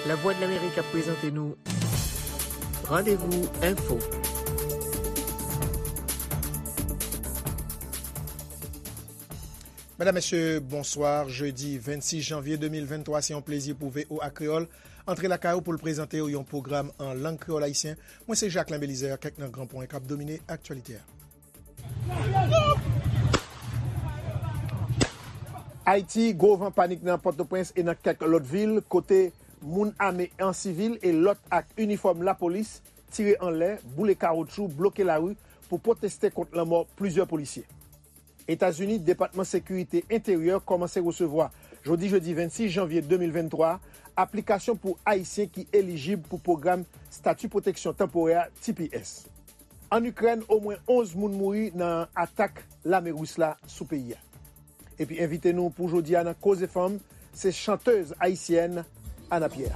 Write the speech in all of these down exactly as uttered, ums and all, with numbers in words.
Lavwadlamerik ap prezante nou Randevou Enfo. Medam, mesye, bonswa. Jedi vennsis janvye de mil venntwa, se yon plezi pou V O A Kreyòl antre lakay ou pou l prezante w yon pwogram an lang kreyòl ayisyen. Mwen se Jacquelin Belizaire, kèk nan gran pwen k ap domine aktyalite a. Ayiti, gwo van panik nan Pòtoprens e nan kèk lòt vil, kote moun ame an sivil e lòt ak inifòm lapolis tire anlè, boule kawotchou, bloke lari pou pwoteste kont lanmò plizyè polisye. Etazini, Depatman Sekirite Enteryè kòmanse resevwa, jodi jedi vennsis janvye de mil venntwa, aplikasyon pou Ayisyen ki elijib pou pwogram Stati Pwoteksyon Tanporè, T P S. Ann Ikrèn, omwen onz moun mouri nan atak lame ris la sou peyi a. Epi envite nou pou jodi a nan Koze Fanm, se chantèz ayisyèn Ana Pierre.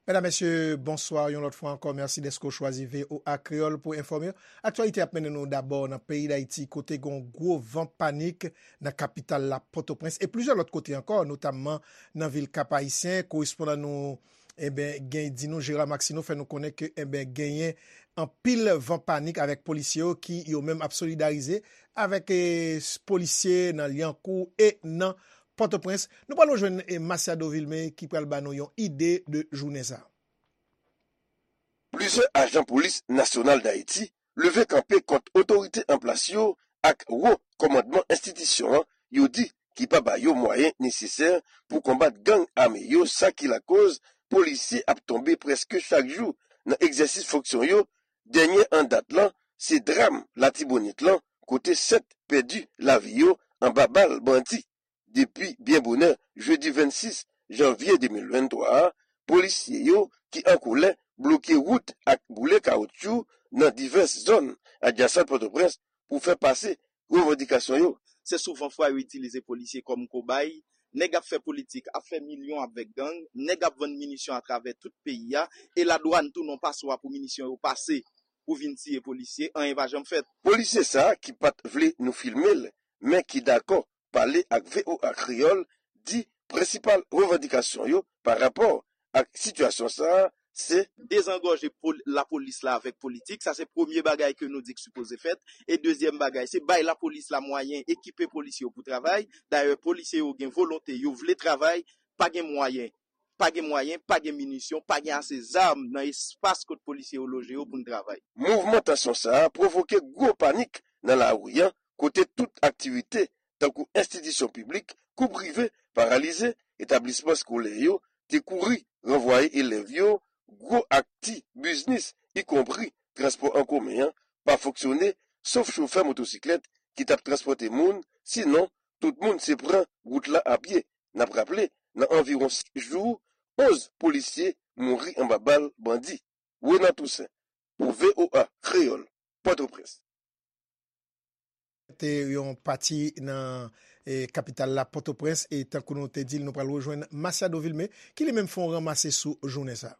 Medam, mesye, bonswa yon lòt fwa ankò. Mèsi dèske w chwazi V O A Kreyòl pou enfòme w. Aktyalite ap mennen nou dabò nan peyi Dayiti, kote gen yon gwo van panik nan kapital la, Pòtoprens, e plizyè lòt kote ankò, notamman nan vil Kap Ayisyen. Korespondan nou, eben, gen, di nou, Gérard Maxineau, fè nou konnen ke, eben, genyen anpil van panik avèk polisye yo ki yo menm ap solidarize avèk, eh, s-, polisye nan Lyankou e nan Pòtoprens. Nou pral rejwenn, eh, Masiado Vilmé ki pral ba nou yon ide de jounen sa. Plizyè ajan polis nasyonal Dayiti leve kanpe kont otorite an plas yo ak wo kòmandman enstitisyon an, yo di ki pa ba yo mwayen nesesè pou konbat gang ame yo, sa ki lakoz polisye ap tonbe prèske chak jou nan egzèsis fonksyon yo. Dènye an dat lan, se dram Latibonit lan, kote sèt pèdi lavi yo anba bal bandi. Depi byen bonè jedi vennsis janvye de mil venntwa a, polisye yo ki an kolè bloke wout ak boule kawotchou nan divès zòn adjasan Pòtoprens pou fè pase revandikasyon yo. Se souvan fwa yo itilize polisye kòm kobay. Nèg ap fè politik, ap fè milyon avèk gang, nèg ap vann minisyon atravè tout peyi a, e ladwàn tounen yon paswa pou minisyon yo pase, pou vin tiye polisye, anyen pa janm fèt. Polisye sa a ki pa t vle nou filme l, men ki dakò pale ak V O A Kreyòl, di prensipal revandikasyon yo pa rapò ak sitiyasyon sa a, se dezangòje pol-, lapolis la avèk politik. Sa se premye bagay ke nou di k sipoze fèt. E dezyèm bagay, se bay lapolis la mwayen, ekipe polisye yo pou travay. Dayè, polisye yo gen volonte, yo vle travay, pa gen mwayen. Pa gen mwayen, pa gen minisyon, pa gen ase zam nan espas kot polisye yo loje yo pou n travay. Mouvman tansyon sa a pwovoke gwo panik nan lari a, kote tout aktivite, tankou enstitisyon piblik kou prive, paralize, etablisman eskolè yo te kouri ranvwaye elèv yo, gwo ak ti biznis, ikonpri transpò an komen an, pa fonksyone, sof chofè motosiklèt ki t ap transpòte moun, sinon, tout moun se pran wout la a pye. N ap raple, nan anviwon senk jou, onz polisye mouri anba bal bandi. Renan Toussaint, pou V O A Kreyòl, Pòtoprens. Te yon pati nan, eh, kapital la, Pòtoprens, e tankou nou te di l, nou pral rejwenn Masiado Vilmé, ki li menm fè yon ranmase sou jounen sa.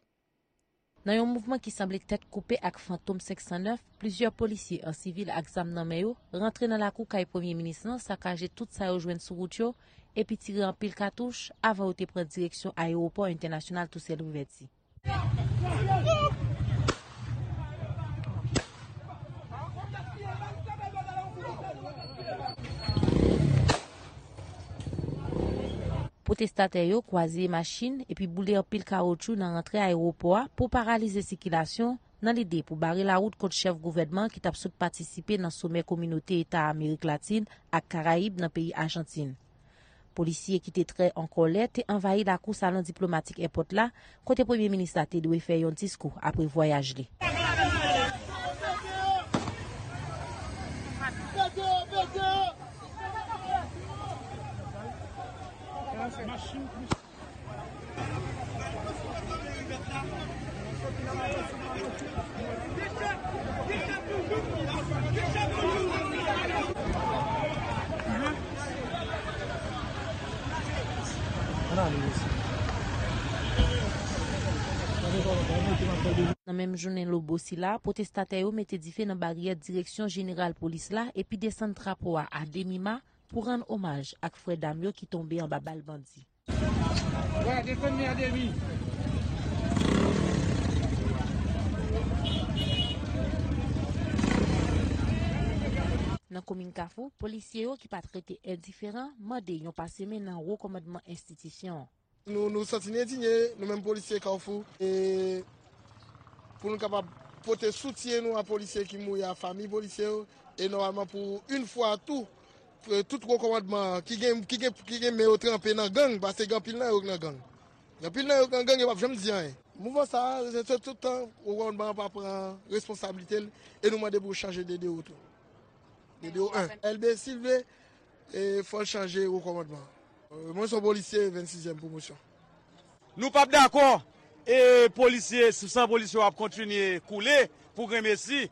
Nan yon mouvman ki sanble tèt koupe ak Fantom senk san nèf, plizyè polisye an sivil ak zam nan men yo rantre nan lakou kay premye minis lan, sakaje tout sa yo jwenn sou wout yo, epi tire anpil katouch avan yo te pran direksyon ayewopò entènasyonal Toussaint Louverture. Pwotestatè yo kwaze machin epi boule anpil kawotchou nan rantre ayewopò a pou paralize sikilasyon, nan lide pou bare lawout kont chèf gouvènman ki t ap sot patisipe nan somè Kominote Eta Amerik Latin ak Karayib nan peyi Ajantin. Polisye ki te trè an kòlè te anvayi lakou salon diplomatik èpòt la, kote premye minis la te dwe fè yon diskou apre vwayaj li. Nan menm jounen lobo sila, pwotestatè yo mete dife nan baryè direksyon jeneral polis la epi desann drapo a a demi ma, pou rann omaj ak frè dam yo ki tonbe anba bal bandi. Nan komin Kafou, polisye yo ki pa t rete endiferan mande yon pase men nan wo kòmandman enstitisyon an. Nou, nou santi n endinye, nou menm polisye Kafou, e pou nou kapab pote soutyen nou a polisye ki mouri, a fanmi polisye yo, e nòmalman pou yon fwa tou, e tout wo kòmandman ki gen, ki gen, ki gen men yo tranpe nan gang, paske gen anpil nan yo k nan gang. Gen anpil nan yo k nan gang, yo p ap janm di anyen. Mouvman sa a, se tout tan wo kòmandman an pa pran responsablite l, e nou mande pou yo chanje D D O tou. D D O en. L B, si l vle, e fò l chanje wo kòmandman. E mwen se yon polisye vennsizyèm pwomosyon. Nou p ap dakò, e polisye, san polisye yo ap kontinye koule pou grenmesi,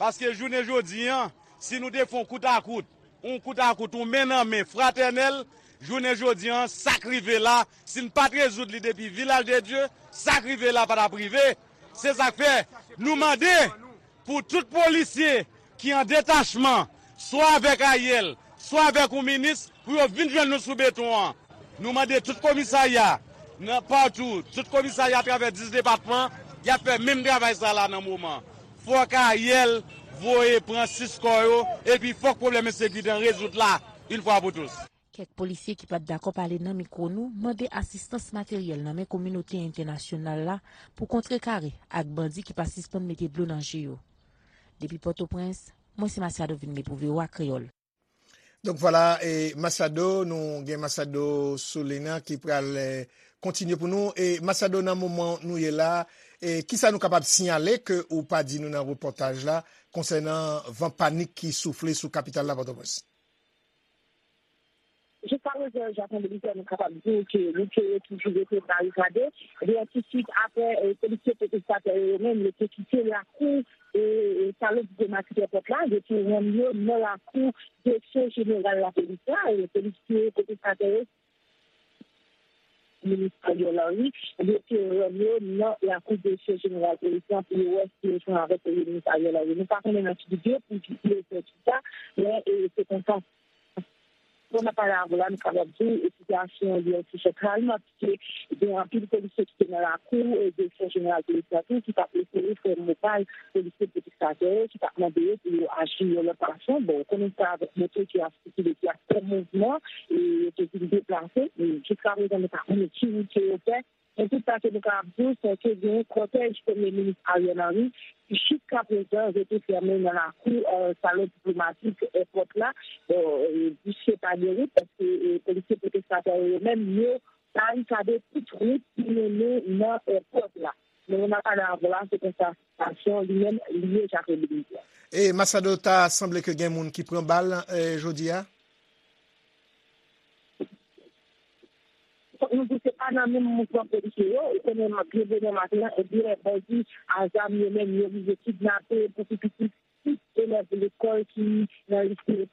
paske jounen jodi an, si nou te fè yon kout a kout, yon kout a kout, yon men nan men fratènèl, jounen jodi an, sa k rive la, si n pa t rezoud li depi Vilaj de Dye, sa k rive la pa t ap rive. Se sa k fè, nou mande pou tout polisye ki an detachman, swa avèk Ariel, swa avèk yon minis, pou yo vin jwenn nou sou beton an. Nou mande tout komisarya, nan patou, tout komisarya atravè dis depatman, y ap fè menm travay sa la nan moman. Fòk Ariel voye pran sis kò yo, epi fòk pwoblèm ensekirite an rezoud la, yon fwa pou tous. Kèk polisye ki pa t dakò pale nan mikwo nou mande asistans materyèl nan men kominote entènasyonal la pou kontrekare ak bandi ki pa sispann mete dlo nan je yo. Depi Pòtoprens, mwen se Masiado Vilmé pou V O A Kreyòl. Donk vwala, e Masiado, nou gen Masiado Solena ki pral, e, kontinye pou nou. E Masiado, nan moman nou ye la, e kisa nou kapab siyale ke ou pa di nou nan repòtaj la konsènan van panik ki soufle sou kapital la, Pòtoprens? Jiska prezan, Jacques André Michel, nou kapab di w ke lise yo toujou rete barikade. Ebyen, tousuit apre, e, polisye pwotestatè yo menm, yo te kite lakou, e, e, salon diplomatik èpòt la, yo te rann yo nan lakou direksyon jeneral lapolis la, e, polisye pwotestatè yo, minis Ariel Henry, yo te rann yo nan lakou direksyon jeneral polis la pou yo wè si yo jwenn avèk premye minis Ariel Henry. Nou pa konnen nan ki bidye pou ki yo fè tout sa, men, e, se konsa. Bon, n ap pale avè w la, nou kapab di w, e, sitiyasyon an li yon ti jan kalm, paske gen anpil polisye ki te nan lakou, e, direksyon jeneral polis la tou, ki t ap eseye fè mopal polisye pwotestatè yo, ki t ap mande yo pou yo aji yon lòt fason. Bon, ou konnen sa avèk moto ki ap sikile, ki ap fè mouvman, e, yo te vin deplase. E, jiska prezan, nou pa konnen ki wout ke yo fè. Men tout sa ke nou kapab di w, se ke gen kòtèj Premye Minis Ariel Henry ki jiska prezan rete fèmen nan lakou, e, salon diplomatik èpòt la, e, bouche pa gen wout, paske, e, polisye pwotestatè yo menm, yo barikade tout wout ki mennen nan èpòt la. Men moun ap pale avè w la, se konsa sitiyasyon li menm li ye, Jacques André Michel. E Masiado, ta sanble ke gen moun ki pran bal, e, jodi a? Fòk nou di se pa nan menm mouvman polisye yo, ou konnen byen bonè maten an, ebyen, bandi a zam yo menm, yo rive kidnape pou pi piti sis elèv lekòl ki nan lise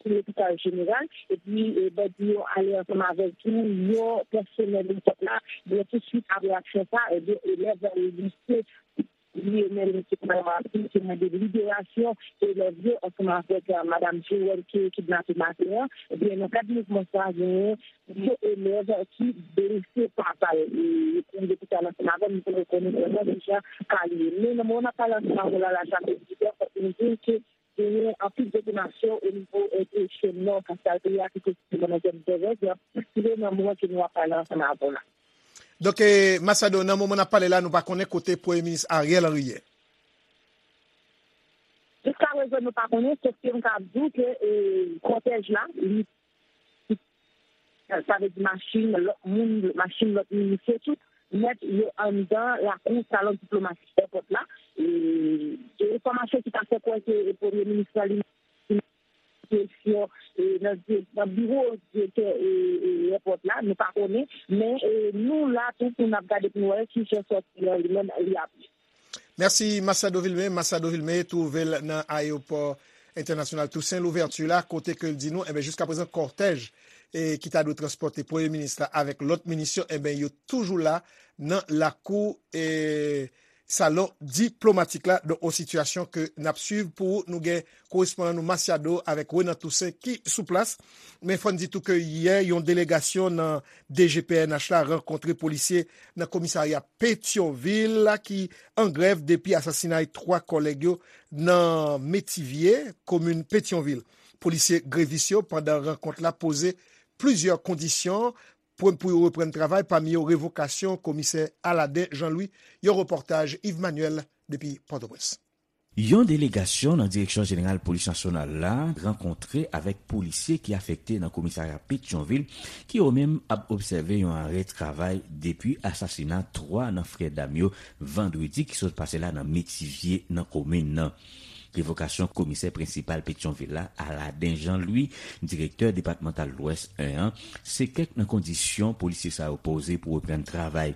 lopital jeneral, epi, e, bandi yo ale ansanm avèk tou yon pèsonèl lekòl la, ebyen, tousuit apre aksyon sa, ebyen, elèv lise Li menm ki pran mati, ki mande liberasyon elèv yo ansanm avèk, eh, madanm Joël ki kidnape maten an. Ebyen, nan kad mouvman sa a, genyen de elèv ki blese pa bal. E pou lopital ansanm avè m, nou te rekonèt vrèman deja ka li ye. Men nan moman n ap pale ansanm avè w la, la, Jacques André Michel, fòk nou di ke genyen anpil detonasyon o nivo, eh, de chèn nò, kapital peyi a, ki presizeman nan zòn Dèvèz, ki nan moman ke nou ap pale ansanm avè w la. Donk, eh, Masiado, nan moman n ap pale la, nou pa konnen kote Premye Minis Ariel Henry ye. Jiska prezan, nou pa konnen, sòf ke m ka di w ke, eh, kòtèj la, li, sa vle di machin, lòt moun, machin lòt minis yo tou, nèt yo anndan lakou salon diplomatik èpòt la. E, gen enfòmasyon ki ta fè kwè ke Premye Minis la, li kesyon, e, nan di-, nan biwo direktè, e, e, èpòt la, nou pa konnen, men, e, nou la tou pou n ap gade pou n wè ki jan sòti an li menm li ap ye. Mèsi, Masiado Vilmé. Masiado Vilmé twouve l nan ayewopò entènasyonal Toussaint Louverture la, kote ke l di nou, enben, jiska prezan, kòtèj, e, ki ta dwe transpòte Premye Minis la avèk lòt minis yo, enben, yo toujou la nan lakou, e, salon diplomatik la. Donk, yon sitiyasyon ke n ap swiv pou ou. Nou gen korespondan nou Masiado avèk Renan Toussaint ki sou plas. Men fò n di tou ke yè, yon delegasyon nan D G P N H la rankontre polisye nan komisarya Petyonvil la ki an grèv depi asasinay twa kòlèg yo nan Metivye, komin Petyonvil. Polisye grevis yo, pandan rankont la, poze plizyè kondisyon pou, pou yo reprann travay, pami yo revokasyon komisè Aladen Jean Louis. Yon repòtaj Yves Manuel depi Pòtoprens. Yon delegasyon nan Direksyon Jeneral Polis Nasyonal la rankontre avèk polisye ki afekte nan komisarya Petyonvil, ki yo menm ap obsève yon arè travay depi asasina twa nan frè dam yo vandredi ki sot pase la nan Metivye nan komin nan. Revokasyon komisè prensipal Petyonvil la, Aladen Jean Louis, direktè depatmantal Lwès en an, se kèk nan kondisyon polisye sa yo poze pou reprann travay.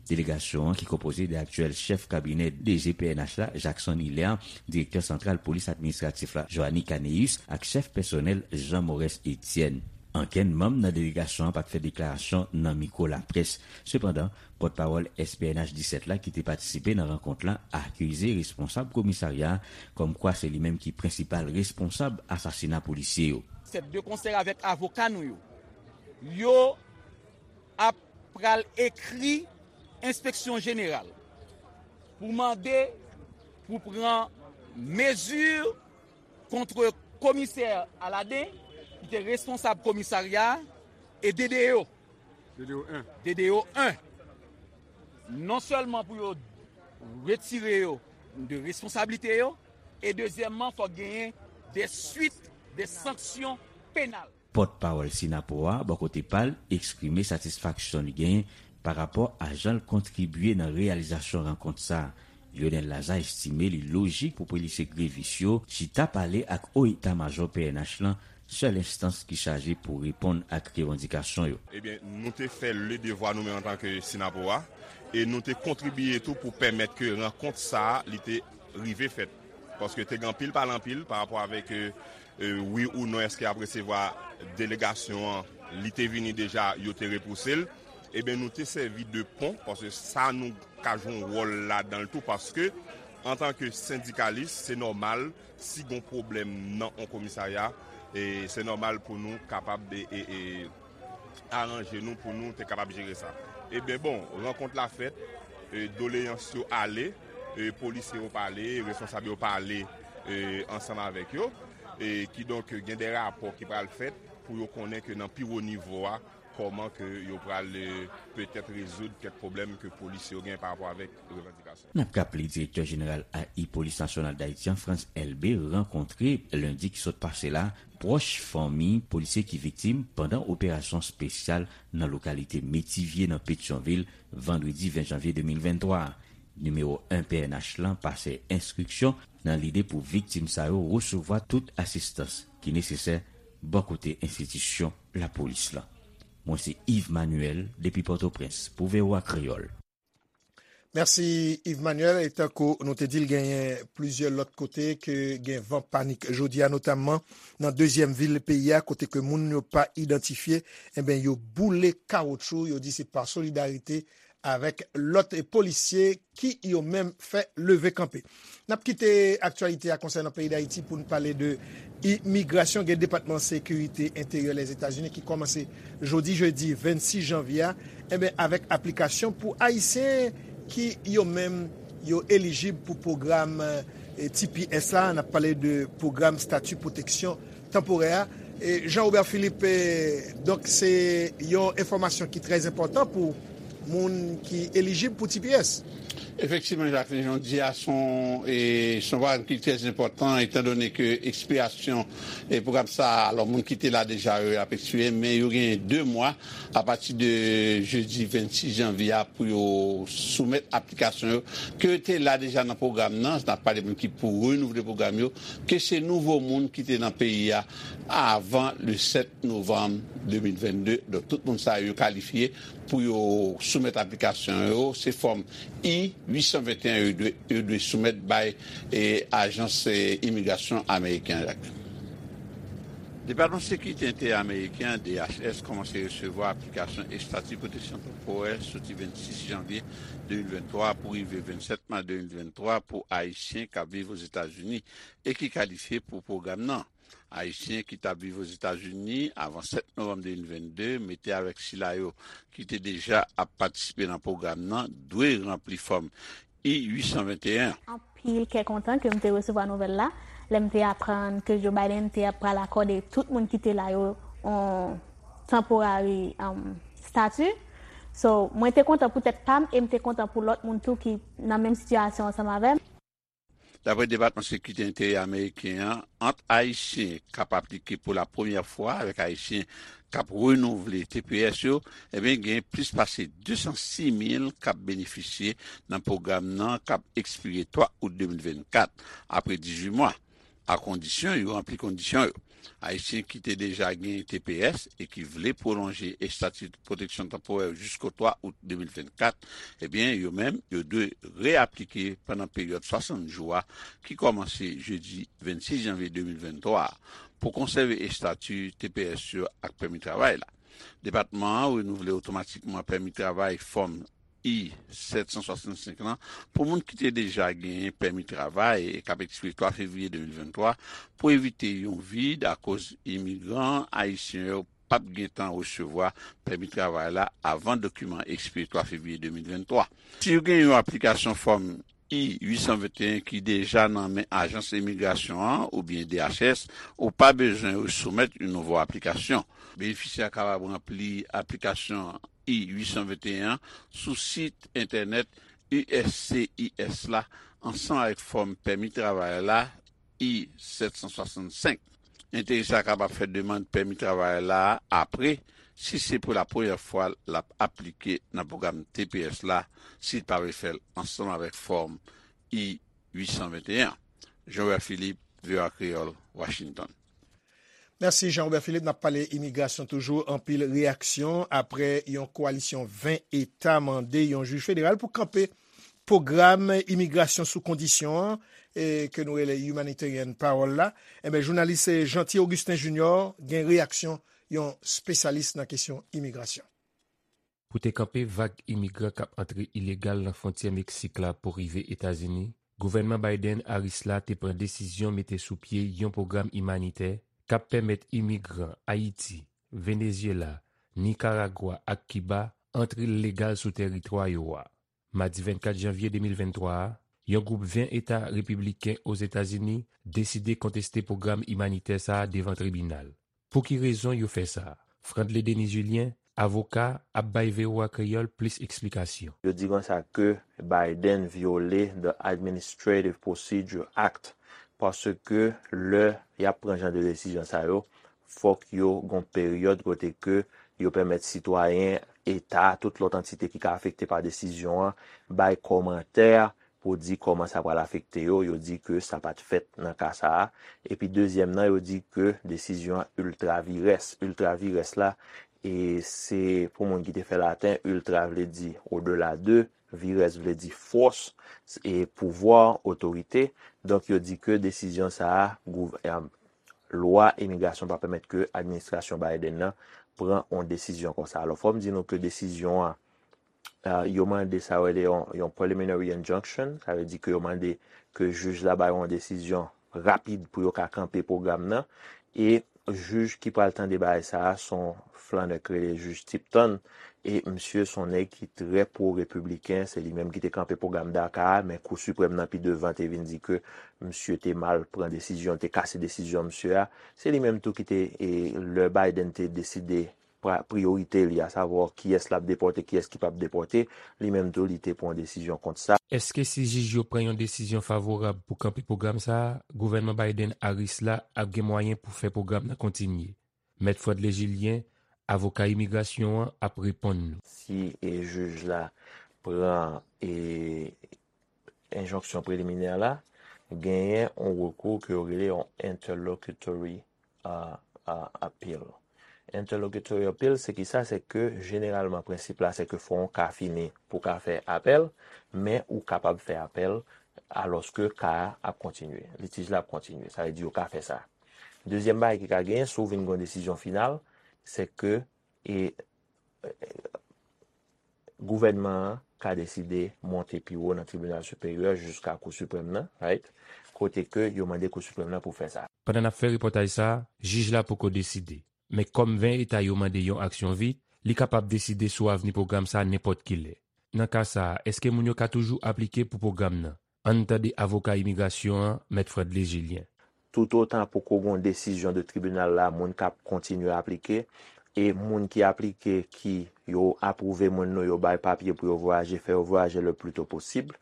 Delegasyon an, ki konpoze de aktyèl chèf kabinè D G P N H la, Jackson Hilaire, direktè santral polis administratif la, Joanny Caneus, ak chèf pèsonèl, Jean Maurès Etienne. Ankenn manm nan delegasyon an pa t fè deklarasyon nan mikwo laprès. Sepandan, pòtpawòl S P N H disèt la, ki te patisipe nan rankont la, akize responsab komisarya a kòmkwa se li menm ki prensipal responsab asasina polisye yo. Sèt de konsèy avèk avoka nou yo, yo ap pral ekri enspeksyon jeneral pou mande pou pran mezi kont komisè Aladen, ki te responsab komisarya a, e D D O. D D O en. D D O en. Non sèlman pou yo retire yo de responsablite yo, e dezyèmman, fòk genyen de swit, de sanksyon penal. Pòtpawòl Synapoha, bò kote pa l, eksprime satisfaksyon li genyen pa rapò a jan l kontribye nan reyalizasyon rankont sa a. Lionel Lazarre estime li lojik pou polisye grevis yo chita pale ak o eta majò P N H lan, sèl enstans ki chaje pou reponn ak revandikasyon yo. Ebyen, nou te fè le devwa nou menm antanke Synapoha, e nou te kontribye tou pou pèmèt ke rankont sa a, li te rive fèt. Paske te gen anpil pale anpil pa rapò avèk, e, e, wi ou non, èske y ap resevwa delegasyon an, li te vini deja, yo te repouse l. Ebyen, nou te sèvi de pon, paske sa nou ka jwe yon wòl ladan l tou, paske antanke sendikalis, se nòmal, si gon pwoblèm nan yon komisarya, e se nòmal pou nou kapab, e, e, e, aranje nou pou nou te kapab jere sa. Ebyen, bon, rankont la fèt, e, doleyans yo ale, e, polisye yo pale, responsab yo pale, e, ansanm avèk yo, e kidonk gen de rapò ki pral fèt pou yo konnen ke nan pi wo nivo a, kòman ke yo pral, e, petèt rezoud kèk pwoblèm ke polisye yo gen pa rapò avèk revandikasyon. N ap raple, direktè jeneral A I Polis Nasyonal Dayiti an, Frantz Elbé, rankontre lendi ki sot pase la pwòch fanmi polisye ki viktim pandan operasyon espesyal nan lokalite Metivye nan Petyonvil, vandredi ven janvye de mil venntwa a. Nimewo en P N H lan pase enstriksyon nan lide pou viktim sa yo resevwa tout asistans ki nesesè bò kote enstitisyon lapolis lan. Mwen se Yves Manuel depi Pòtoprens pou V O A Kreyòl. Mèsi, Yves Manuel. E tankou nou te di l, genyen plizyè lòt kote ke gen van panik jodi a, notamman nan dezyèm vil peyi a, kote ke moun yo pa idantifye, enben, yo boule kawotchou, yo di se pa solidarite avèk lòt polisye ki yo menm fè leve kanpe. N ap kite aktyalite a konsènan peyi Dayiti pou n pale de imigrasyon. Gen Depatman Sekirite Enteryè Lèzetazini ki kòmanse jodi jedi vennsis janvye a, enben, avèk aplikasyon pou Ayisyen ki yo menm yo elijib pou pwogram, e, T P S la. N ap pale de pwogram stati pwoteksyon tanporè a. E Jean Robert Philippe, e, donk, se yon enfòmasyon ki trè enpòtan pou moun ki elijib pou T P S. Efektivman, Jacqueline, jan w di a, se yon, e, se yon pwogram ki trè enpòtan, etandone ke ekspirasyon, e, pwogram sa a, alò, moun ki te la deja yo ap ekspire, men yo genyen de mwa apati de jedi vennsis janvye a pou yo soumèt aplikasyon yo, ke te la deja nan pwogram nan, n ap pale moun ki pou renouvle pwogram yo, ke se nouvo moun ki te nan peyi a avan le sèt novanm de mil vennde. Donk, tout moun sa yo kalifye pou yo soumèt aplikasyon yo. Se fòm I uit san venteyen yo dwe, yo dwe soumèt bay, e, ajans, e, imigrasyon ameriken an, Jacqueline. Depatman Sekirite Enteryè Ameriken an, D H S, kòmanse resevwa aplikasyon estati pwoteksyon tanporè soti vennsis janvye de mil venntwa pou rive vennsèt mas de mil venntwa pou Ayisyen k ap viv Ozetazini e ki kalifye pou pwogram nan. Ayisyen ki t ap viv Ozetazini avan sèt novanm de mil vennde, mete avèk sila yo ki te deja ap patisipe nan pwogram nan, dwe ranpli fòm I uit san venteyen. Anpil kè kontan ke m te resevwa nouvèl la, lè m te aprann ke Joe Biden te ap pral akòde tout moun ki te la yo yon temporary, um, statut. So, mwen te kontan pou tèt pa m e m te kontan pou lòt moun tou ki nan menm sitiyasyon ansanm avè m. Daprè Depatman Sekirite Enteryè Ameriken an, ant Ayisyen k ap aplike pou la premyè fwa avèk Ayisyen k ap renouvle T P S yo, ebyen, gen plis pase de san sis mil k ap benefisye nan pwogram nan k ap ekspire twa out de mil vennkat, apre dizuit mwa, a kondisyon yo ranpli kondisyon yo. Ayisyen ki te deja gen T P S e ki vle pwolonje estati pwoteksyon tanporè jisko twa out de mil vennkat, ebyen, yo menm, yo dwe reaplike pandan peryòd swasant jou a, ki kòmanse jedi vennsis janvye de mil venntwa a, pou konsève estati T P S yo ak pèmi travay la. Depatman an renouvle otomatikman pèmi travay fòm I sèt san swasannsenk lan pou moun ki te deja genyen pèmi travay e k ap ekspire twa fevriye de mil venntwa, pou evite yon vid akoz imigran ayisyen yo p ap gentan resevwa pèmi travay la avan dokiman ekspire twa fevriye de mil venntwa. Si w gen yon aplikasyon fòm I uit san venteyen ki deja nan men Ajans Imigrasyon an oubyen D H S, ou pa bezwen resoumèt yon nouvo aplikasyon. Benefisyè a kapab ranpli aplikasyon I uit san venteyen an sou sit entènèt U S C I S la ansanm avèk fòm pèmi travay la I sèt san swasannsenk. Enterese a kapab fè demann pèmi travay la apre, si se pou la premyè fwa l ap aplike nan pwogram T P S la, si l pa vle fè l ansanm avèk fòm I uit san venteyen. Jean Robert Philippe, V O A Kreyòl, Washington. Mèsi Jean Robert Philippe. N ap pale imigrasyon toujou. Anpil reyaksyon apre yon kowalisyon ven eta mande yon jij federal pou kanpe pwogram imigrasyon sou kondisyon an, e, ke nou rele humanitarian parole la. Enben, jounalis, e, Jeanty Augustin Junior gen reyaksyon yon espesyalis nan kesyon imigrasyon. Pou te kanpe vag imigran k ap antre ilegal nan fwontyè Meksik la pou rive Etazini, gouvènman Biden-Harris la te pran desizyon mete sou pye yon pwogram imanitè k ap pèmèt imigran Ayiti, Venezyela, Nikaragwa ak Kiba antre legal sou tèritwa yo a. Madi vennkat janvye de mil venntwa a, yon gwoup ven eta repibliken Ozetazini deside konteste pwogram imanitè sa a devan tribinal. Pou ki rezon yo fè sa? Frandley Denis Julien, avoka, ap bay V O A Kreyòl plis eksplikasyon. Yo di konsa ke Biden vyole the Administrative Procedure Act, paske lè y ap pran jan de desizyon sa yo, fòk yo gon peryòd kote ke yo pèmèt sitwayen eta, tout lòt antite ki ka afekte pa desizyon an, bay kòmantè pou di kòman sa pral afekte yo. Yo di ke sa pa t fèt nan ka sa a. Epi dezyèm nan, yo di ke desizyon an ultra vires. Ultra vires la, e se pou moun ki te fè laten, ultra vle di au-delà de, vires vle di fòs, e pouvwa, otorite. Donk, yo di ke desizyon sa a, gouv-, e, lwa imigrasyon pa pèmèt ke administrasyon Biden nan pran yon desizyon konsa. Alò, fò m di nou ke desizyon an, e, yo mande sa yo rele yon, yon preliminary injunction, sa vle di ke yo mande ke jij la bay yon desizyon rapid pou yo ka kanpe pwogram nan, e jij ki pral tande bagay sa a, se yon flannè k rele jij Tipton, e misye se yon nèg ki trè pwo-repibliken, se li menm ki te kanpe pwogram DACA a, men Kou Siprèm nan pi devan te vin di ke misye te mal pran desizyon, te kase desizyon misye a. Se li menm tou ki te, e, lè Biden te deside pra-, priyorite li, asavwa kiyès l ap depòte, kiyès ki p ap depòte, li menm tou li te pran yon desizyon kont sa. Èske si jij yo pran yon desizyon favorab pou kanpe pwogram sa a, gouvènman Biden-Harris la ap gen mwayen pou fè pwogram nan kontinye? Mèt Frandley Julien, avoka imigrasyon an, ap reponn nou. Si, e, jij la pran, e, enjonksyon preliminè la, genyen yon rekou ke yo rele yon interlocutory, a, a, appeal. Interlocutory appeal, se ki sa? Se ke jeneralman prensip la, se ke fò yon ka fini pou ka fè apèl, men ou kapab fè apèl alòske ka a ap kontinye, litij la ap kontinye. Sa vle di yo ka fè sa. Dezyèm bagay ki ka genyen, si w vin gen yon desizyon final, se ke e, e, gouvènman an ka deside monte pi wo nan tribinal siperyè jiska Kou Siprèm nan, right? Kote ke yo mande Kou Siprèm nan pou fè sa. Pandan n ap fè repòtaj sa a, jij la poko deside. Men kòm ven eta yo mande yon aksyon vit, li kapab deside sou avni pwogram sa a nenpòt ki lè. Nan ka sa a, èske moun yo ka toujou aplike pou pwogram nan? Ann tande avoka imigrasyon an, Mèt Fredley Julien. Toutotan poko gen yon desizyon de tribinal la, moun k ap kontinye aplike, e moun ki aplike, ki yo apwouve moun nou, yo bay papye pou yo vwayaje, fè yo vwayaje le pli to posib.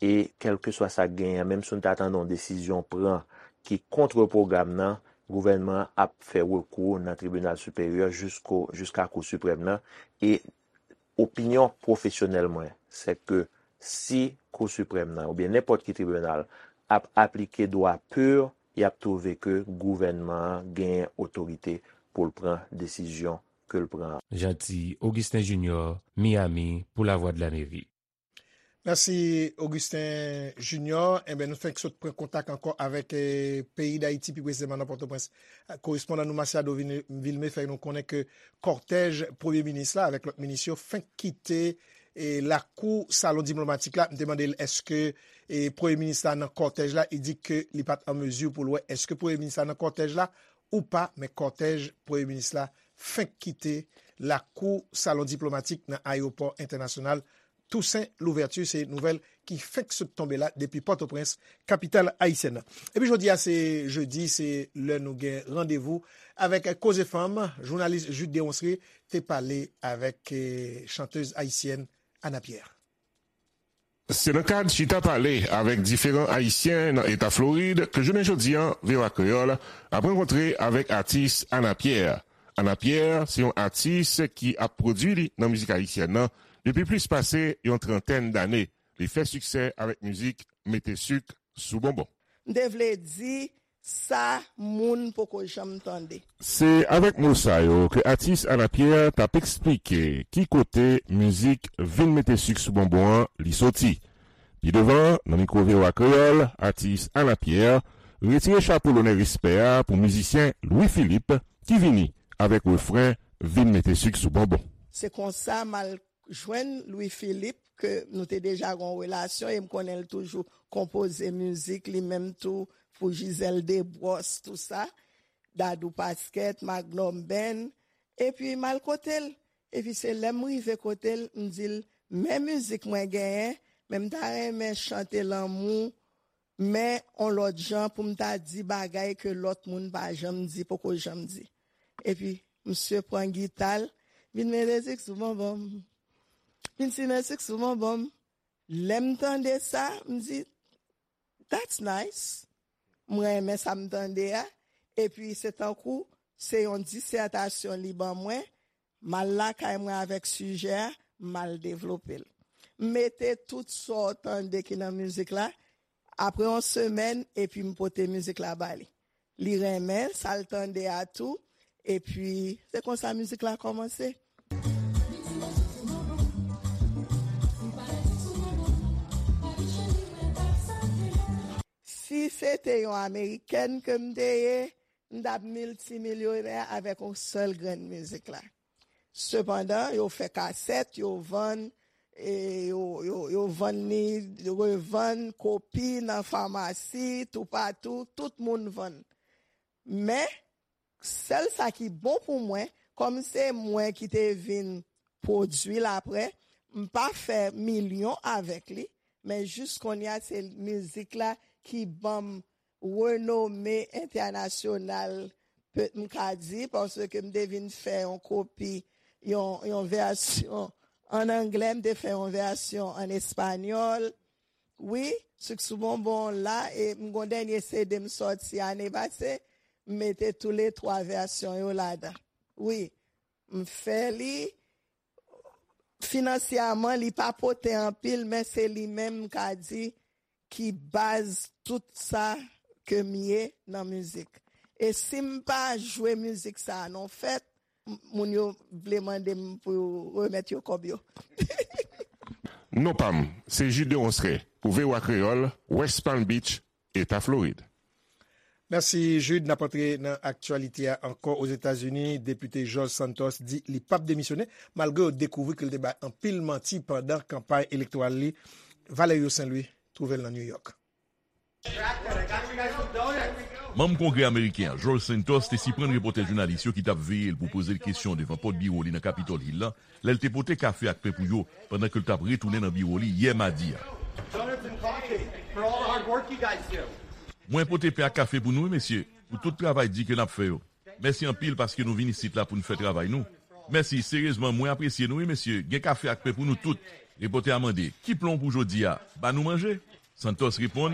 E kèlkeswa sa k genyen, menm si nou ta tande yon desizyon pran ki kont pwogram nan, gouvènman an ap fè rekou nan tribinal siperyè jisko, jiska Kou Siprèm nan. E opinyon pwofesyonèl mwen, se ke si Kou Siprèm nan, oubyen nenpòt ki tribinal, ap aplike dwa pur, y ap twouve ke gouvènman an genyen otorite pou l pran desizyon ke l pran an. Jeanty Augustin Junior, Miami, pou Lavwadlamerik. Mèsi, Augustin Junior. Enben, nou fenk sot pran kontak ankò avèk, eh, peyi Dayiti, pi presizeman nan Pòtoprens. Korespondan nou, Masiado Vil-, Vilmé, fè nou konnen ke kòtèj premye minis la avèk lòt minis yo fenk kite, eh, lakou salon diplomatik la. M te mande l èske, eh, premye minis la nan kòtèj la. Li di ke li pa t an mezi pou l wè èske premye minis la nan kòtèj la ou pa, men kòtèj premye minis la fenk kite lakou salon diplomatik nan ayewopò entènasyonal Toussaint Louverture. Se nouvèl ki fenk sot tonbe la depi Pòtoprens, kapital ayisyèn nan. Epi jodi a se jedi, se lè nou gen randevou avèk Koze Fanm. Jounalis Jude Deronceray te pale avèk, eh, chantèz ayisyèn Ana Pierre. Se nan kad chita pale avèk diferan Ayisyen nan eta Florid ke jounen jodi a, V O A Kreyòl ap rankontre avèk atis Ana Pierre. Ana Pierre se yon atis ki ap pwodui li nan mizik ayisyèn nan depi plis pase yon trantèn dane. Li fè siksè avèk mizik Mete sik sou bonbon. M te vle di sa moun poko janm tande. Se avèk mo sa yo ke atis Ana Pierre t ap eksplike ki kote mizik Vin mete sik sou bonbon an li soti. Pi devan, nan mikwo V O A Kreyòl, atis Ana Pierre retire chapo lonè respè a pou mizisyen Louis Philippe ki vini avèk refren Vin mete sik sou bonbon. Se konsa m al jwenn Louis Philippe, ke nou te deja gen yon relasyon, e m konnen l toujou konpoze mizik, li menm tou, pou Gisèle Desbrosses, tou sa, Dadou Pasquet, Magnum Band, epi m al kote l. Epi se lè m rive kote l, m di l, men mizik mwen genyen, men m ta renmen chante lanmou, men on lòt jan pou m ta di bagay ke lòt moun pa janm di, poko janm di. Epi, misye pran gita l, vin mete sik sou bonbon m. Vin simen sik sou bonbon m. Lè m tande sa, m di, "That's nice." M renmen sa m tande a. Epi, se tankou, se yon disètasyon li ban mwen. M al lakay mwen avèk sijè a, m al devlope l. M mete tout sa w tande ki nan mizik la, apre yon semèn, epi m pote mizik la ba li. Li renmen sa l tande a tou, epi se konsa mizik la kòmanse. Si se te yon amerikèn ke m te ye, m t ap miltimilyonè avèk yon sèl grenn mizik la. Sepandan, yo fè kasèt, yo vann, e yo, yo, yo vann li, yo revann kopi nan famasi, toupatou, tout moun vann. Men, sèl sa ki bon pou mwen, kòm se mwen ki te vin pwodui l apre, m pa fè milyon avèk li, men jis kounye a, se mizik la ki ban m renome entènasyonal, pe-, m ka di, paske m te vin fè yon kopi, yon, yon vèsyon ann anglè, m te fè yon vèsyon ann espanyòl. Wi, Sik sou Bonbon la, e m gon dènye C D m sòti ane pase, m mete toulètwa vèsyon yo ladan. Wi, m fè li, finansyèman, li pa pote anpil, men se li menm m ka di ki baz tout sa ke m ye nan mizik. E si m pa jwe mizik sa a nan fèt, m-, moun yo vle mande m pou yo remèt yo kòb yo. Non pa m, se Jude Deronceray, pou V O A Kreyòl, West Palm Beach, Eta Florid. Mèsi, Jude. N ap antre nan aktyalite a ankò. Ozetazini, depite George Santos di li p ap demisyone, malgre yo dekouvri ke l te bay anpil manti pandan kanpay elektoral li. Valerio Saint Louis twouve l nan New York. Manm Kongrè ameriken an, George Santos, te siprann repòtè jounalis yo ki t ap veye l pou poze l kesyon devan pòt biwo li nan Capitol Hill la, lè l te pote kafe ak pen pou yo pandan ke l t ap retounen nan biwo li yè madi a. Mwen pote pen ak kafe pou nou, wi, mesye, pou tout travay di ke n ap fè yo. Mèsi anpil paske nou vin isit la pou n fè travay nou. Mèsi, seryezman, mwen apresye nou, wi, mesye. Gen kafe ak pen pou nou tout. Repòtè a mande, ki plan w pou jodi a? Ba nou manje? Santos reponn,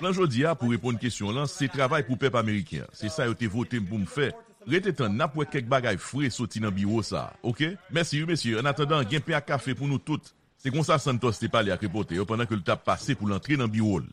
plan jodi a, pou reponn kesyon w lan, se travay pou pèp ameriken an. Se sa yo te vote m pou m fè. Rete tann, n ap wè kèk bagay fre soti nan biwo sa a, oke? Mèsi wi, mesye. Annatandan, gen pen ak kafe pou nou tout. Se konsa Santos te pale ak repòtè yo pandan ke l t ap pase pou l antre nan biwo l.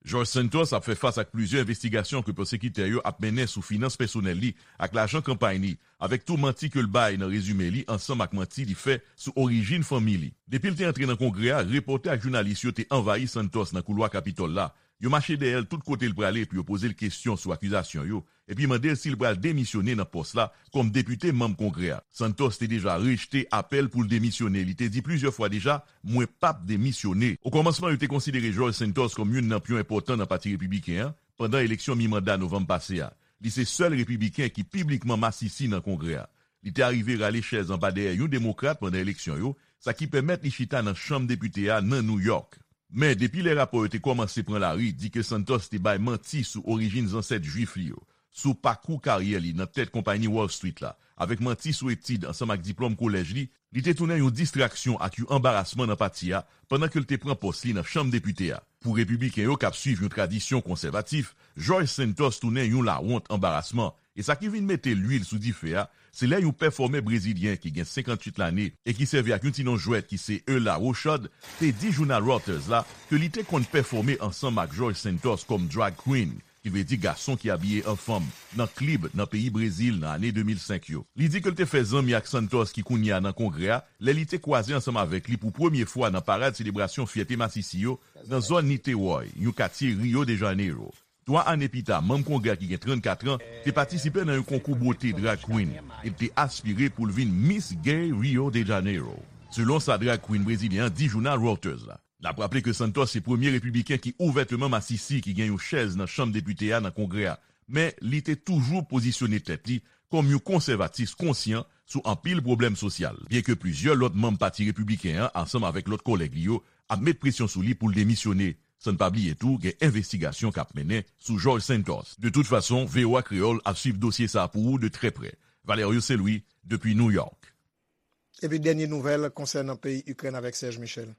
George Santos ap fè fas ak plizyè envestigasyon ke pwosekitè yo ap mennen sou finans pèsonèl li ak lajan kanpay li, avèk tou manti ke l bay nan rezime li ansanm ak manti li fè sou orijin fanmi li. Depi l te antre nan Kongrè a, repòtè ak jounalis yo te anvayi Santos nan koulwa Kapitòl la. Yo mache dèyè l tout kote l prale pou yo poze l kesyon sou akizasyon yo, epi mande l si l pral demisyone nan pòs la kòm depite manm Kongrè a. Santos te deja rejte apèl pou l demisyone. Li te di plizyè fwa deja, mwen p ap demisyone. Okòmansman, yo te konsidere George Santos kòm youn nan pyon enpòtan nan Pati Repibliken an pandan eleksyon mi-manda novanm pase a. Li se sèl Repibliken ki piblikman masisi nan Kongrè a. Li te arive rale chèz anba dèyè yon Demokrat pandan eleksyon yo, sa ki pèmèt li chita nan Chanm Depite a nan New York. Men, depi lè rapò yo te kòmanse pran lari, di ke Santos te bay manti sou orijin zansèt Jwif li yo, sou pakou karyè li nan tèt konpayi Wall Street la, avèk manti sou etid ansanm ak diplòm kolèj li, li te tounen yon distraksyon ak yon anbarasman nan pati a pandan ke l te pran pòs li nan Chanm Depite a. Pou Repibliken yo k ap swiv yon tradisyon konsèvatif, George Santos tounen yon lawont anbarasman, e sa ki vin mete lwil sou dife a, se lè yon pèfòmè brezilyen ki gen senkantuit lane e ki sèvi ak yon ti non jwèt ki se Eula Rochard, te di jounal Reuters la ke li te konn pèfòme ansanm ak George Santos kòm drag queen, ki vle di gason ki abiye an fanm, nan klib nan peyi Brezil nan ane de mil senk yo. Li di ke l te fè zanmi ak Santos ki kounye a nan Kongrè a lè li te kwaze ansanm avèk li pou premye fwa nan parad selebrasyon fyète masisi yo nan zòn Niterói, yon katye Rio de Janeiro. Twa ane pita, manm Kongrè a ki gen trannkat an te patisipe nan yon konkou bote drag queen e l te aspire pou l vin Miss Gay Rio de Janeiro, selon sa drag queen brezilyen an di jounal Reuters la. N ap raple ke Santos se premye repibliken ki ouvèteman masisi ki gen yon chèz nan Chanm Depite a nan Kongrè a, men li te toujou pozisyone tèt li kòm yon konsèvatis konsyan sou anpil pwoblèm sosyal, byenke plizyè lòt manm Pati Repibliken an, ansanm avèk lòt kòlèg li yo, ap met presyon sou li pou l demisyone. San n pa bliye tou, gen envestigasyon k ap mennen sou George Santos. De tout fason, V O A Kreyòl ap swiv dosye sa a pou ou de trè prè. Valerio Saint Louis, depi New York. Epi dènye nouvèl konsènan peyi Ikrèn avèk Serge Michel.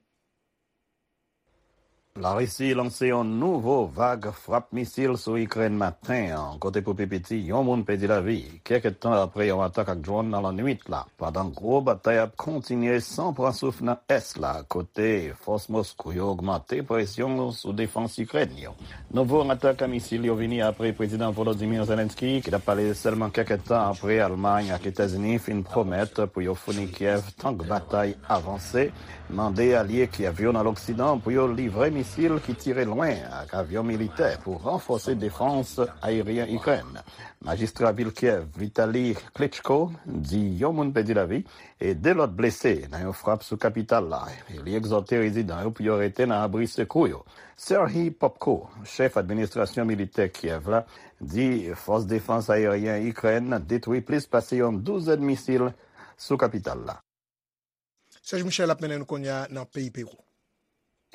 Larisi lanse yon nouvo vag frap misil sou Ikrèn maten an, kote pou pi piti yon moun pèdi lavi, kèk tan apre yon atak ak dwòn nan lannwit la, pandan gwo batay ap kontinye san pran souf nan ès la, kote fòs Moskou yo ogmante presyon sou defans Ikrèn yo. Nouvo atak a misil yo vini apre Prezidan Volodymyr Zelensky, ki t ap pale sèlman kèk tan apre Almay ak Etazini fin pwomèt pou yo founi Kyèv tank batay avanse, mande alye Kyèv yo nan Loksidan pou yo livre misil ki tire lwen ak avyon militè pou ranfòse defans ayeryen Ikrèn. Majistra vil Kyèv, Vitali Klitschko, di yon moun pèdi lavi e de lòt blese nan yon frap sou kapital la, e li egzòte rezidan yo pou yo rete nan abri sekou yo. Serhiy Popko, chèf administrasyon militè Kyèv la, di fòs defans ayeryen Ikrèn detwi plis pase yon douzèn misil sou kapital la. Serge Michel ap mennen nou kounye a nan peyi Pewou.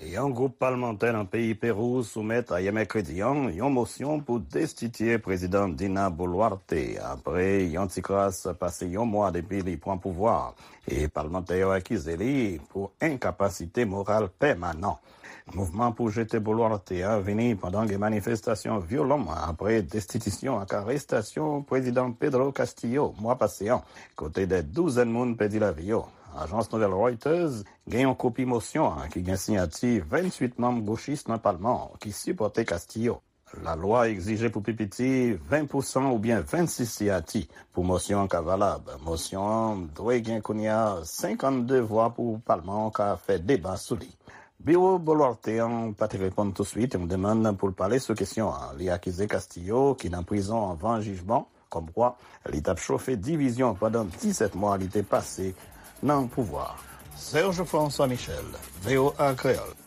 Yon gwoup palmantè nan peyi Pewou soumèt ayè mèkredi an yon mosyon pou destitye Prezidan Dina Boluarte apre yon ti kras pase yon mwa depi li pran pouvwa a, e palmantè yo akize li pou enkapasite moral pèmanan. Mouvman pou jete Boluarte a vini pandan gen manifestasyon vyolan apre destitisyon ak arestasyon Prezidan Pedro Castillo mwa pase an, kote dè douzèn moun pèdi lavi yo. Ajans nouvèl Reuters gen yon kopi mosyon an ki gen siyati venntuit manm gochis nan palman an ki sipòte Castillo. Lalwa egzije pou pi piti ven pousan oubyen vennsis siyati pou mosyon an ka valab. Mosyon an dwe gen kounye a senkannde vwa pou palman an ka fè deba sou li. Biwo Boluarte an pa te reponn touswit yon demann pou l pale sou kesyon an. Li akize Castillo, ki nan prizon anvan jijman, kòmkwa li t ap chofe divizyon pandan disèt mwa li te pase nan pouvwa a. Serge François Michel, V O A Kreyòl.